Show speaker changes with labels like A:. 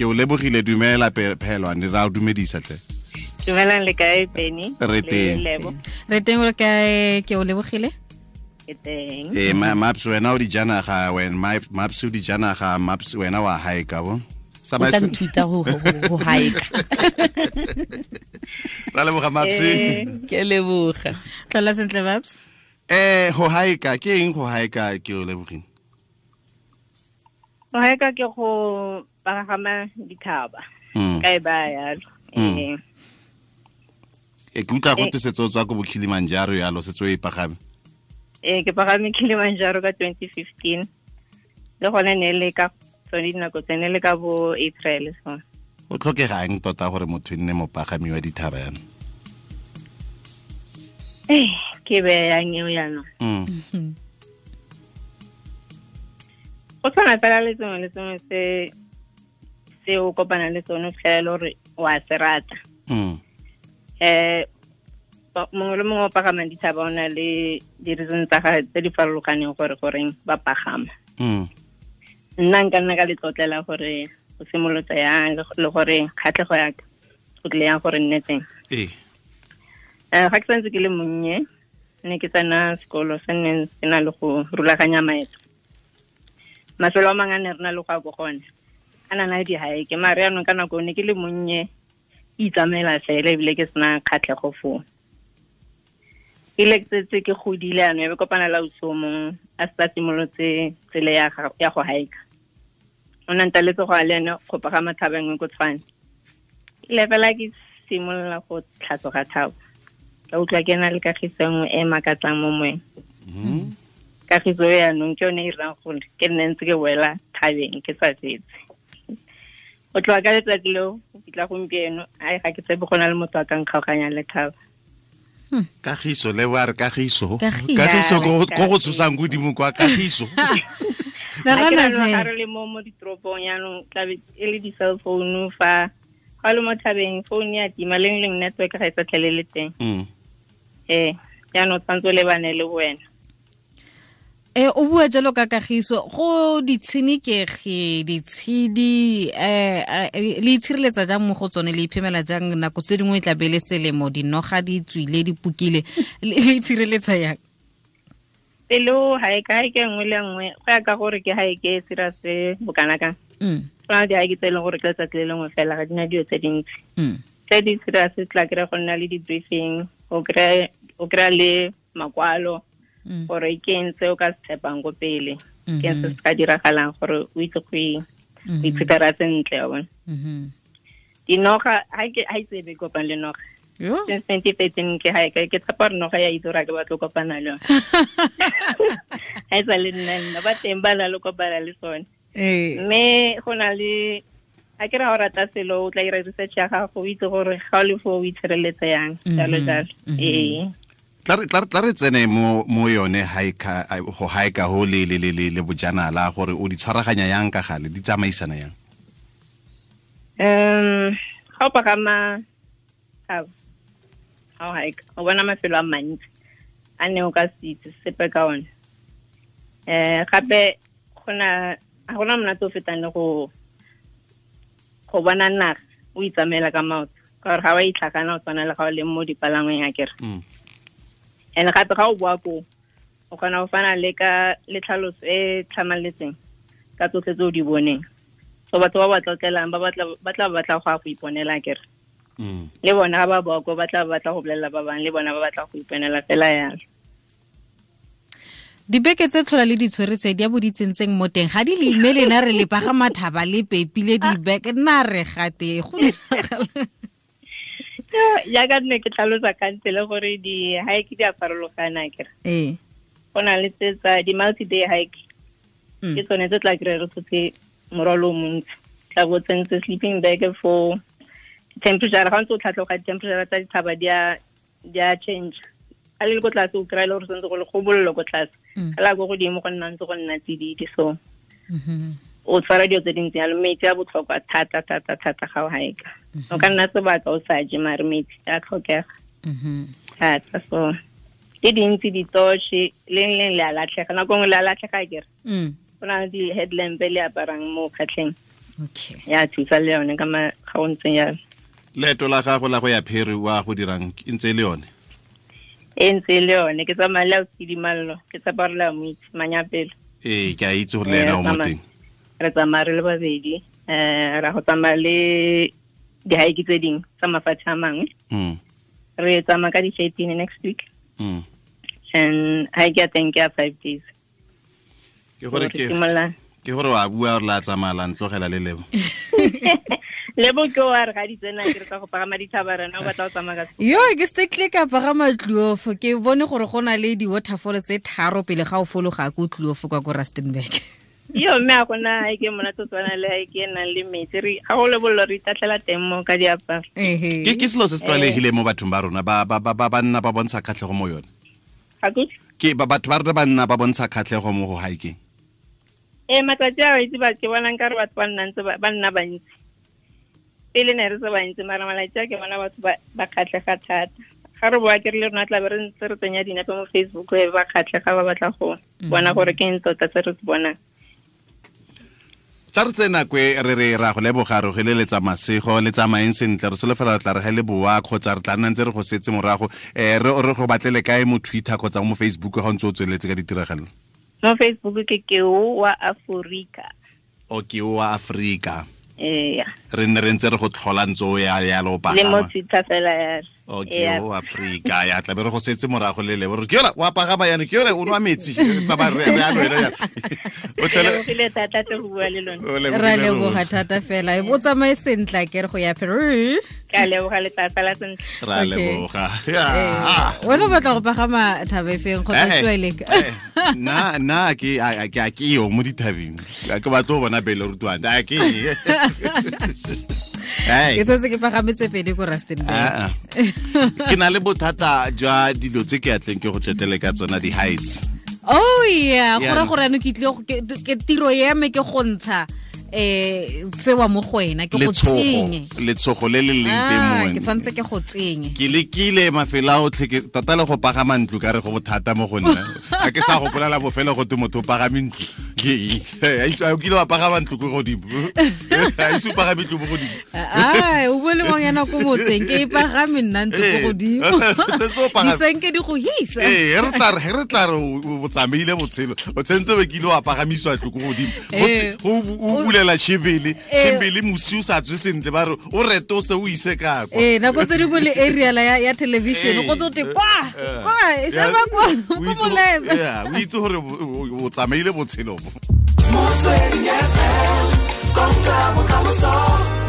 A: Ke o lebogile, dumela Phelwane, ra o dumedisa tle.
B: Dumelang, le kae Penny?
A: Re teng.
C: Re teng, o kae? Ke o lebogile?
B: Ke teng.
A: Ee, Maps, wena o dijanaga, wena Maps o dijanaga, Maps wena wa haeka bo.
D: O tla nthuta go haeka.
A: Ra leboga Maps.
D: Ke leboga.
C: Tlhola sentle Maps.
A: Go haeka ke eng go haeka ke o lebogile?
B: Go haeka ke go pagama dithaba. Ka e ba yalo.
A: Ke utlwa go tse tswa ko bo Kilimanjaro yalo, setse o e pagame.
B: Ke pagame Kilimanjaro ka 2015. Le gone ne le ka tsone dinako tse ne le ka bo April so.
A: O tlhokegang tota gore motho nne mopagami wa dithaba yana?
B: Ke be yang eo yana. Go tshwana fela le sengwe le sengwe se o kopana le sone fela gore wa se rata. Mongwe le mongwe o pagamang dithaba o na le di-reason tsa gagwe tse di farologaneng gore goreng ba pagama. Nna nka nna ka letlotlela gore go simolotse yang le gore kgatlhego ya ka go tlile yang gore nne teng. Ga ke santse ke le monnye, ne ke tsena sekolo se nne se na le go rulaganya maeto. Mafelo a mangwe a ne re na le go ya ko gone a na na le di-hike, mare yaanong ka nako ne ke le monnye ke itsamaela fela ebile ke sena kgatlhego foo. Ile ke setse ke godile yaanong, e be kopana le ausi o mongwe a setse a simolotse tsela ya go hike. O ne a ntaletse go ya le ene go pagama thaba e nngwe ko Tshwane. Ile fela ke simolola go tlhatloga thaba, ka utlwa ke na le kagiso nngwe e makatsang mo moeng. Kagiso e yaanong ke yone e irang gore ke nne ntse ke boela thabeng ke sa fetse. Go tloga ka letsatsi leo go fitlha gompieno, ai ga ke tshepe go na le motho a ka nkgaoganyang le thaba.
A: Kagiso le ba re kagiso. Kagiso go go tshosang godimo kwa kagiso.
B: Ga re le mo ditoropong yaanong tlabe e le di-cell phone fa ga le mo thabeng phone ya tima leng leng network ga e sa tlhele le teng. Jaanong o tshwanetse o lebane le wena.
C: O bua jalo ka kagiso, go ditshenekegi, ditshedi, le itshireletsa jang mo go tsone, le iphemela jang nako tse dingwe e tla be le selemo, dinoga di tswile, di pukile, le itshireletsa yang?
B: Pelo hike nngwe le nngwe go ya ka gore ke hike e serious bokana kang. Go na le di-hike tse e leng gore ke letsatsi le lengwe fela, ga di na dilo tse dintsi. Tse di serious tla kry-a go nna le di-briefing, o kry-a le makwalo gore ke eng se o ka se tshepang ko pele, ke eng se se ka diragalang gore o itse go iphepera sentle wa bona. Dinoga ha itse be kopang le noga. Since 2013 ke hike, ke tshepa gore noga ya itse gore ke batlo kopana le yone. Ha e sa le nna, ba teng ba na le kopana le sone. Mme go na le a ke ra o rata selo, o tla ira research ya gago, o itse gore ga o le foo o itshireletsa yang, jalo jalo.
A: Tla re tsene mo yone hike, go hike ho le le le le bojanala, gore o di tshwaraganya yang ka gale, di tsamaisana yang?
B: Ga o pagama thaba, ga o hike, o bona mafelo a mantsi a ne o ka se itse sepe ka one. Gape ga gona monate o fetang le go bona naga o itsamaela ka maoto, ka gore ga wa itlhakana o tshwana le ga o le mo dipalangweng akere. And gape ga o boa koo, o kgona go fana le ka le tlhaloso e tlhamaletseng ka tsotlhe tse o di boneng. So batho ba ba tlotlelang ba tla batla go ya go iponela akere. Le bona ga ba boa koo ba tla batla go bolelela ba bangwe, le bona ba batla go iponela fela yalo.
C: Dibeke tse tlhola le ditshwere tse di a bo di tsentseng mo teng, ga di le imele na re le pagama thaba le pepile dibeke, nna re gate go diragala.
B: Jaaka nne ke tlhalosa kante le gore di-hike di a farologana akere. Go na le tse tsa di-multi-day hike. Ke tsone tse tla kry-a re tshotse morwalo o montsi. Tla bo tsentse sleeping bag for temperature, ga o ntse o tlhatloga di-temperature tsa dithaba di a change. A le ko tlase o kry-a le gore santse go le go bollo ko tlase. Ga la ko godimo go nna ntse go nna tsididi, so o tshwara dilo tse dintsi jalo. Metsi a botlhokwa thata thata thata ga o hike. O ka nna sebaka o sa je, mare metsi a tlhokega thata. So ke dintsi ditoshe, leng leng le a latlhega, nako nngwe le a latlhega akere. Go na le di-headlamp le aparang mo kgatlheng.
C: Okay.
B: Ya thusa le yone ka ga o ntseng yalo.
A: Leeto la gago la go ya Pheri wa go dirang e ntse le yone?
B: E ntse le yone, ke tsamaya le Ausidimallo, ke tsapa re la mo itse Manyapelo.
A: Ee, ke a itse gore le ena o mo teng.
B: Re tsamaya re le babedi, ra go tsamaya le di-hike tse dingwe tsa mafatshe a mangwe. Re tsamaya ka di-13 next week. And hike ya teng ke ya 5 days.
A: Ke gore ke gore wa bua gore la tsamaya la ntlogela le Lebo.
B: Lebo ke wa re ga di tsena ke re tsa go pagama dithaba rena o batla go tsamaya ka.
C: Yo ke se ka pagama Kloof, ke bone gore go na le di-waterfall tse 3 pele ga o fologa ko Kloof kwa ko Rustenburg.
B: Yo mme a gona hike monate o tshwana le hike e nang le metsi, re ga go lebollo re itatlhela teng mo ka diaparo.
A: Ke selo se se tlwaelegileng mo bathong ba rona ba ba ba nna ba bontsha kgatlhego mo yone. Ke batho ba rona ba nna ba bontsha kgatlhego mo go hiking.
B: Matsatsi a itse ba ke bonang ka re batho ba nna ntse ba nna bantsi. Pele ne re se bantsi mara malatsi a ke bona batho ba kgatlhega thata. Ga re boa ke re le rona tla be re ntse re tsenya dinepe mo Facebook e ba kgatlhega ba batla go bona gore ke eng tota se re se bonang.
A: Tla re tsena kwe re re ra go leboga re geleletsa masego le tsamaeng sentle, re solofela re tla re ga le boa kgotsa re tla nna ntse re go setse morago. Re go batlele kae mo Twitter kgotsa mo Facebook ga o ntse o tsweletse ka ditiragalo?
B: Mo Facebook ke Keo wa Afrika.
A: O Keo wa Afrika.
B: Ee.
A: Re nne re ntse re go tlhola ntse o ya ya lo pagama.
B: Le mo Twitter fela ya.
A: O Keo wa Afrika ya tla be re go setse morago le lebo. Ke yona wa pagama yana, ke yona o nwa metsi tsa re ya lwena ya. O
B: tlele thata tle go bua le lona.
C: Ra leboga thata fela. O tsamaye sentle ke re go ya Pheri.
B: Ka leboga le tata la sentle.
A: Ra leboga.
C: Wena o batla go pagama thaba efeng kgotsa tsweleng?
A: Na ke a ke yo mo dithabeng. Ke batla go bona Bele Rutwana. A ke.
C: Ke setse ke pagametse pedi ko Rustenburg.
A: Ke na le bothata jwa dilo tse ke atleng ke go tletele ka tsona di-heights.
C: Oh yeah, go ra gore ano ke tlile ke tiro ya me ke go ntsha tsewa mo go wena ke go tsenye.
A: Letshogo le le leng teng mo wena.
C: Ke tshwanetse ke go tsenye.
A: Ke lekile mafelo a otlhe ke tota le go pagama ntlo ka re go bothata mo go nna. A ke sa gopolela bofelo go te motho o pagame ntlo. A o kile wa pagama ntlo ko godimo? A ise o pagame ntlo mo godimo?
C: Ai, o bue le ngwanyana ko motseng ke e pagame nna ntlo ko godimo. Disenke di go hisa.
A: Ee, re tla re o tsamaile botshelo. O tshwanetse be kile wa pagamiswa ntlo ko godimo. Go o bulela chibele, chibele mosi o sa tswe sentle ba re o retose o ise ka kwa.
C: Nako tse dingwe le aerial ya television go tsote kwa kwa e sheba kwa ko molebe.
A: O itse gore o tsamaile botshelo bo.
E: Motsweding FM, konka bokamoso.